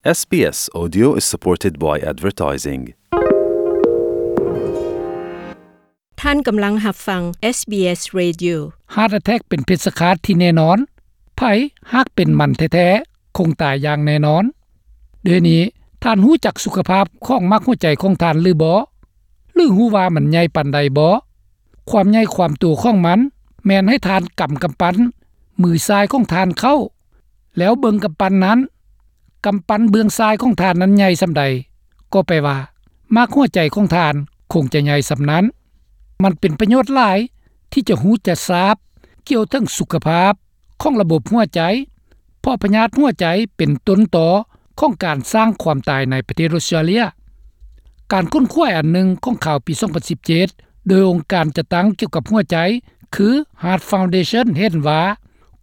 ເອສບີເອສ Audio is supported by advertising. ທ່ານກຳລັງຮັບຟັງ ເອສບີເອສ Radio. Heart attack ເປັນເພດສະຄາດທີ່ແນ່ນອນ. ໃຜຫາກເປັນມັນແທ້ໆ ຄົງຕາຍຢ່າງແນ່ນອນ. ດຽວນີ້ທ່ານຮູ້ຈັກສຸຂະພາບຂອງໝາກຫົວໃຈຂອງທ່ານຫຼືບໍ່? ຫຼືຮູ້ວ່າມັນໃຫຍ່ປານໃດບໍ່? ຄວາມໃຫຍ່ຄວາມໂຕຂອງມັນແມ່ນໃຫ້ທ່ານກຳກຳປັ້ນມືຊ້າຍຂອງທ່ານເຂົ້າ ແລ້ວເບິ່ງກຳປັ້ນນັ້ນ, ກຳປັ້ນເບື້ອງຊ້າຍຂອງທ່ານນັ້ນໃຫຍ່ສ່ຳໃດ, ກໍແປວ່າໝາກຫົວໃຈຂອງທ່ານຄົງຈະໃຫຍ່ສ່ຳນັ້ນ. ມັນເປັນປະໂຫຍດຫຼາຍທີ່ຈະຮູ້ຈະຊາບກ່ຽວເຖິງສຸຂະພາບຂອງລະບົບຫົວໃຈ, ເພາະພະຍາດຫົວໃຈເປັນຕົ້ນຕໍຂອງການສ້າງຄວາມຕາຍໃນປະເທດອົດສະຕຣາເລຍ. ການຄົ້ນຄວ້າອັນໜຶ່ງຂອງຂ່າວປີສອງພັນສິບເຈັດ ໂດຍອົງການຈັດຕັ້ງກ່ຽວກັບຫົວໃຈ ຄື Heart Foundation ເຫັນວ່າ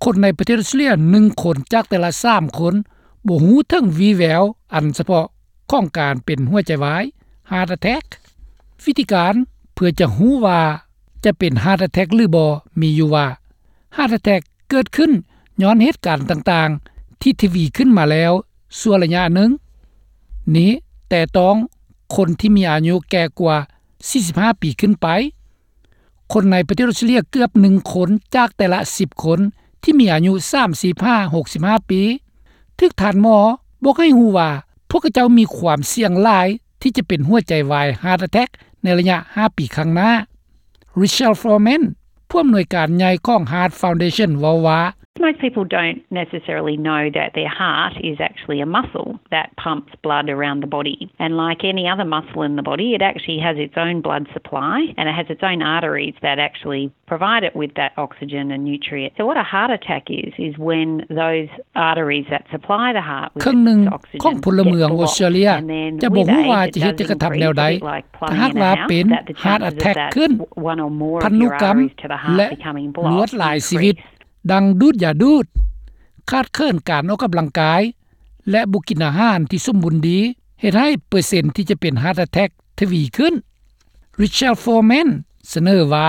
ຄົນໃນປະເທດອົດສະຕຣາເລຍໜຶ່ງຄົນຈາກແຕ່ລະສາມຄົນ ບໍ່ຮູ້ເຖິງວີ່ແວວອັນສະເພາະຂອງການເປັນຫົວໃຈວາຍ Heart Attack. ວິທີການເພື່ອຈະຮູ້ວ່າຈະເປັນ Heart Attack ຫຼືບໍ່ ມີຢູ່ວ່າ Heart Attack ເກີດຂຶ້ນຍ້ອນເຫດການຕ່າງໆທີ່ທະວີຂຶ້ນມາແລ້ວຊົ່ວໄລຍະໜຶ່ງ. ນີ້ແຕ່ຕ້ອງຄົນທີ່ມີອາຍຸແກ່ກວ່າສີ່ສິບຫ້າປີຂຶ້ນໄປ. ຄົນໃນປະເທດອົດສະຕຣາເລຍເກືອບໜຶ່ງຄົນຈາກແຕ່ລະສິບຄົນທີ່ມີອາຍຸສາມສິບຫາຫົກສິບຫ້າປີ ຖືກທ່ານໝໍບອກໃຫ້ຮູ້ວ່າ ພວກເຂົາເຈົ້າມີຄວາມສ່ຽງຫຼາຍທີ່ຈະເປັນຫົວໃຈວາຍ Heart Attack ໃນໄລຍະຫ້າປີຂ້າງໜ້າ. Richelle Foreman ຜູ້ອຳນວຍການໃຫຍ່ຂອງ Heart Foundation ເວົ້າວ່າ Most people don't necessarily know that their heart is actually a muscle that pumps blood around the body. And like any other muscle in the body, it actually has its own blood supply and it has its own arteries that actually provide it with that oxygen and nutrient. So what a heart attack is, is when those arteries that supply the heart with ເຄິ່ງໜຶ່ງ its oxygen ຂອງພົນລະເມືອງ gets ອອສເຕຣເລຍ blocked. And then ຈະບໍ່ຮູ້ວ່າຈະເຮັດຈັກກະທຳແນວໃດ ຖ້າຫາກວ່າເປັນ Heart Attack ຂຶ້ນ, ພັນທຸກຳ ແລະ ລວດລາຍຊີວິດ ດັ່ງດູດຢາດູດ, ຂາດເຂີນການອອກກຳລັງກາຍ ແລະ ບໍ່ກິນອາຫານທີ່ສົມບູນດີ ເຮັດໃຫ້ເປີເຊັນທີ່ຈະເປັນ Heart Attack ທະວີຂຶ້ນ. Richelle Foreman ສະເໜີວ່າ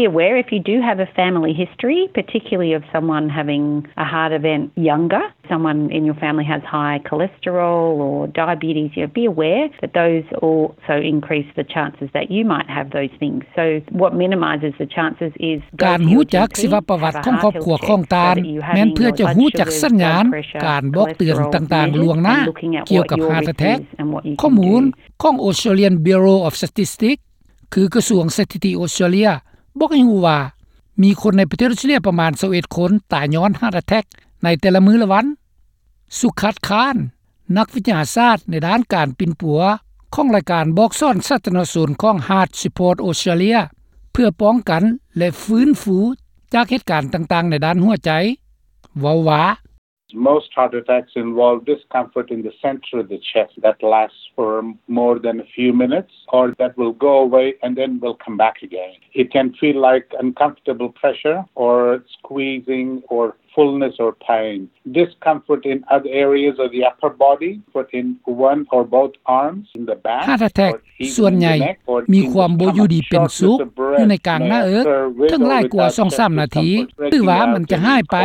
Be aware if you do have a family history, particularly of someone having a heart event younger, someone in your family has high cholesterol or diabetes, you know, be aware that those also increase the chances that you might have those things. So what minimises the chances is ການຮູ້ຈັກຊີວະປະຫວັດຂອງຄອບຄົວຂອງທ່ານ ແມ່ນເພື່ອຈະຮູ້ຈັກສັນຍານການບອກເຕືອນຕ່າງໆລ່ວງໜ້າກ່ຽວກັບ Heart Attack. ຂໍ້ມູນຂອງ Australian Bureau of Statistics ຄືກະຊວງສະຖິຕິອົດສະຕຣາເລຍ ບອກໃຫ້ຮູ້ວ່າ ມີຄົນໃນປະເທດອົດສະຕຣາເລຍປະມານຊາວເອັດຄົນຕາຍຍ້ອນ Heart Attack ໃນແຕ່ລະມື້ລະວັນ. ສຸຂັດ ຄານ ນັກວິທະຍາສາດໃນດ້ານການປິ່ນປົວຂອງລາຍການບອກສອນສາທາລະນະຊົນຂອງ Heart Support Australia ເພື່ອປ້ອງກັນ ແລະ ຟື້ນຟູຈາກເຫດການຕ່າງໆໃນດ້ານຫົວໃຈ ເວົ້າວ່າ Most heart attacks involve discomfort in the center of the chest that lasts for more than a few minutes, or that will go away and then will come back again. It can feel like uncomfortable pressure or squeezing or fullness or pain. Discomfort in other areas of the upper body, but in one or both arms, in the back, Heart Attack ສ່ວນໃຫຍ່ມີຄວາມບໍ່ຢູ່ດີເປັນສຸກຢູ່ໃນກາງໜ້າເອິກ ເຖິງຫຼາຍກວ່າສອງສາມນາທີ ຫຼືວ່າມັນຈະຫາຍໄປ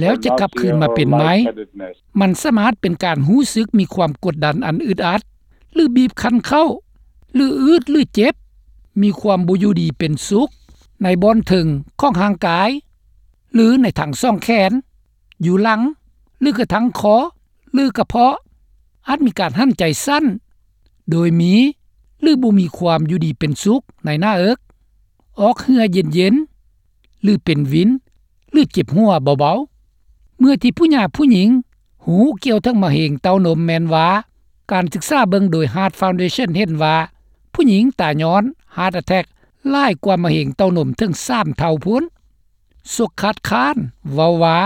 ແລ້ວຈະກັບຄືນມາເປັນໃໝ່. ມັນສາມາດເປັນການຮູ້ສຶກມີຄວາມກົດດັນອັນອຶດອັດ ຫຼື ບີບຄັນເຂົ້າ ຫຼື ອືດ ຫຼື ເຈັບ, ມີຄວາມບໍ່ຢູ່ດີເປັນສຸກໃນບ່ອນເທິງຂອງຮ່າງກາຍ ຫຼື ໃນທັງສອງແຂນ, ຢູ່ຫຼັງ ຫຼື ກະທັງຄໍ ຫຼື ກະເພາະ, ອາດມີການຫັນໃຈສັ້ນ ໂດຍມີ ຫຼື ບໍ່ມີຄວາມຢູ່ດີເປັນສຸກໃນໜ້າເອິກ, ອອກເຫື່ອເຢັນໆ ຫຼື ເປັນວິນ ຫຼື ເຈັບຫົວເບົາໆ. ເມື່ອທີ່ຜູ້ຍາຜູ້ຍິງຮູ້ກ່ຽວເຖິງມະເຮັງເຕົ້ານົມແມ່ນວ່າ ການສຶກສາເບິ່ງໂດຍ Heart Foundation ເຫັນວ່າ ຜູ້ຍິງຕາຍຍ້ອນ Heart Attack ຫຼາຍກວ່າມະເຮັງເຕົ້ານົມເຖິງສາມເທົ່າພຸ້ນ. ສົກຄາດຄານ ເວົ້າວ່າ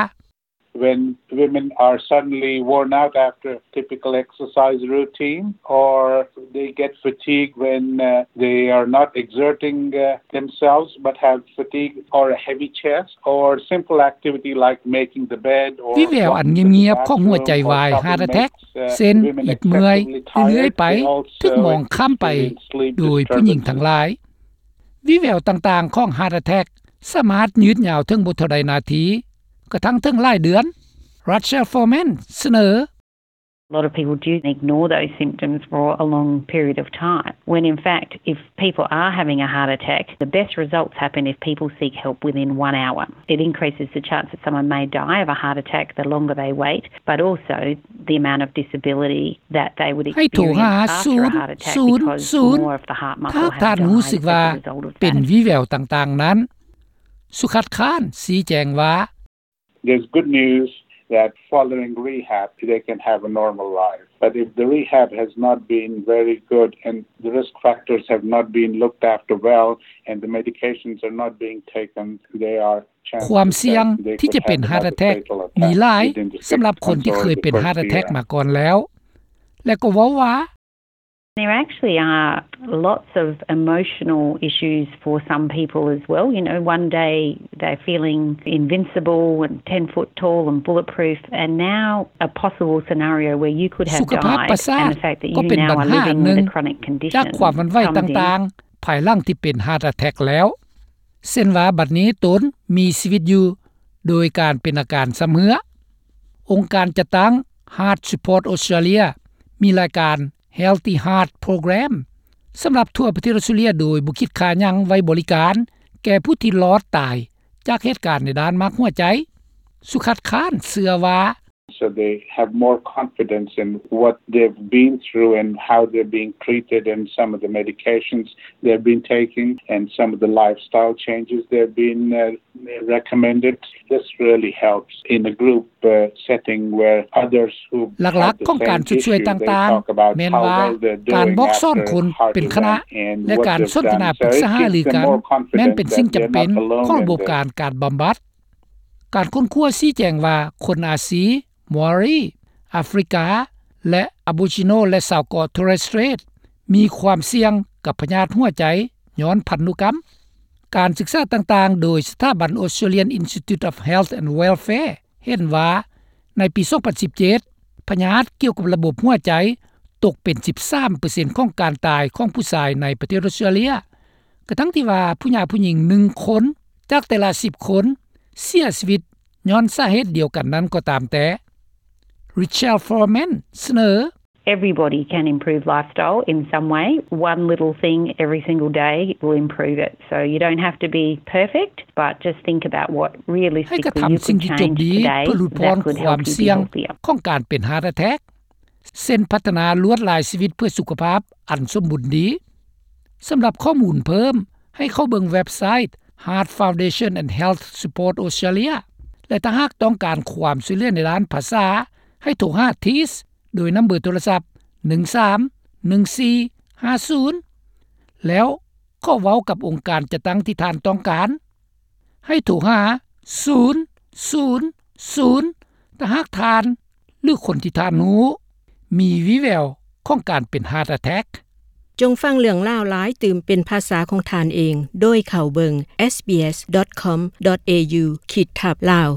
When women are suddenly worn out after a typical exercise routine, or they get fatigued when, uh, they are not exerting, uh, themselves but have fatigue or a heavy chest, or simple activity like making the bed or ວິແວວອັນງຽບໆຂອງຫົວໃຈວາຍ Heart Attack ເຊັ່ນ ອິດເມື່ອຍ ເລື້ອຍໆໄປ ຖືກມອງຂ້າມໄປໂດຍຜູ້ຍິງທັງຫຼາຍ. ວິແວວຕ່າງໆຂອງ Heart Attack ສາມາດຍືດຍາວເຖິງບໍ່ເທົ່າໃດນາທີ ກະທັ່ງເຖິງຫຼາຍເດືອນ. Rachel Foreman ສະເໜີ. A lot of people do ignore those symptoms for a long period of time, when in fact, if people are having a heart attack, the best results happen if people seek help within one hour. It increases the chance that someone may die of a heart attack the longer they wait, but also the amount of disability that they would experience after a heart attack, because more of the heart muscle has died as a result of that. ໃຫ້ໂທຫາສູນສູນສູນຖ້າທ່ານຮູ້ສຶກວ່າເປັນວີແວວຕ່າງໆນັ້ນ. ສຸຂັດຄານຊີ້ແຈງວ່າ There's good news that following rehab, they can have a normal life. But if the rehab has not been very good and the risk factors have not been looked after well and the medications are not being taken, they are ຄວາມສ່ຽງທີ່ຈະເປັນ heart attack ມີຫຼາຍສຳລັບຄົນທີ່ເຄີຍເປັນ heart attack ມາກ່ອນແລ້ວ ແລະກໍເວົ້າວ່າ There actually are lots of emotional issues for some people as well. You know, one day they're feeling invincible and ten foot tall and bulletproof, and now a possible scenario where you could have died and the fact that you now are living with a chronic condition comes in. ສຸຂະພາບປະສາດກໍເປັນບັນຫາໜຶ່ງຈາກຄວາມຫວັ່ນໄຫວຕ່າງໆ ພາຍຫຼັງທີ່ເປັນ heart attack ແລ້ວ ເຊັ່ນວ່າບັດນີ້ຕົນມີຊີວິດຢູ່ໂດຍການເປັນອາການຊຳເຮື້ອ. ອົງການຈັດຕັ້ງ Heart Support Australia ມີລາຍການ Healthy Heart Program ສຳລັບທົ່ວປະເທດອອສເຕຣເລັຽ ໂດຍບໍ່ຄິດຄ່າຫຍັງໄວ້ບໍລິການແກ່ຜູ້ທີ່ລອດຕາຍຈາກເຫດການໃນດ້ານໝາກຫົວໃຈ. ສຸຂັດຄານເຊື່ອວ່າ So they have more confidence in what they've been through and how they're being treated and some of the medications they've been taking and some of the lifestyle changes they've been uh, recommended. This really helps in a group uh, setting where others who ຫຼັກໆຂອງການຊົດຊ່ວຍຕ່າງໆ ແມ່ນວ່າການບອກສອນຄົນເປັນຄະນະ ແລະການສົນທະນາປຶກສາຫາລືກັນ ແມ່ນເປັນສິ່ງຈຳເປັນຂອງລະບົບການການບຳບັດ. ການຄົ້ນຄວ້າຊີ້ແຈງວ່າຄົນອາຊີ, ມາວຣີ, ອາຟຣິກາ ແລະ Aboriginal ແລະຊາວເກາະ Torres Strait ມີຄວາມສ່ຽງກັບພະຍາດຫົວໃຈຍ້ອນພັນທຸກຳ. ການສຶກສາຕ່າງໆ ໂດຍສະຖາບັນ Australian Institute of Health and Welfare ເຫັນວ່າໃນປີສອງພັນສິບເຈັດ ພະຍາດກ່ຽວກັບລະບົບຫົວໃຈຕົກເປັນສິບສາມເປີເຊັນຂອງການຕາຍຂອງຜູ້ຊາຍໃນປະເທດອອສເຕຣເລັຽ ກະທັ່ງທີ່ວ່າຜູ້ຍາຜູ້ຍິງໜຶ່ງຄົນຈາກແຕ່ລະສິບຄົນເສຍຊີວິດຍ້ອນສາເຫດດຽວກັນນັ້ນກໍຕາມແຕ່. Richelle Foreman ສະເໜີ Everybody can improve lifestyle in some way. One little thing every single day will improve it. So you don't have to be perfect, but just think about what realistically you could change today that could help you be healthier. ໃຫ້ກະທຳສິ່ງທີ່ຈົບດີເພື່ອຫຼຸດຜ່ອນຄວາມສ່ຽງຂອງການເປັນ heart attack ເຊັ່ນພັດທະນາລວດລາຍຊີວິດເພື່ອສຸຂະພາບອັນສົມບູນດີ. ສຳລັບຂໍ້ມູນເພີ່ມ ໃຫ້ເຂົ້າເບິ່ງເວັບໄຊ Heart Foundation and Health Support Australia ແລະ ຖ້າຫາກຕ້ອງການຄວາມຊ່ວຍເຫຼືອໃນດ້ານພາສາ ໃຫ້ໂທຫາ TEAS ໂດຍນຳເບີໂທລະສັບ ໜຶ່ງສາມໜຶ່ງສີ່ຫ້າສູນ ແລ້ວຂໍເວົ້າກັບອົງການຈັດຕັ້ງທີ່ທ່ານຕ້ອງການ. ໃຫ້ໂທຫາ ສູນສູນສູນ ຖ້າຫາກທ່ານ ຫຼື ຄົນທີ່ທ່ານຮູ້ ມີວີແວວຂອງການເປັນ heart attack. ຈົ່ງຟັງເລື່ອງລາວຫຼາຍຕື່ມເປັນພາສາຂອງທ່ານເອງ ໂດຍເຂົ້າເບິ່ງ sbs.com.au ຂີດທັບ Lao.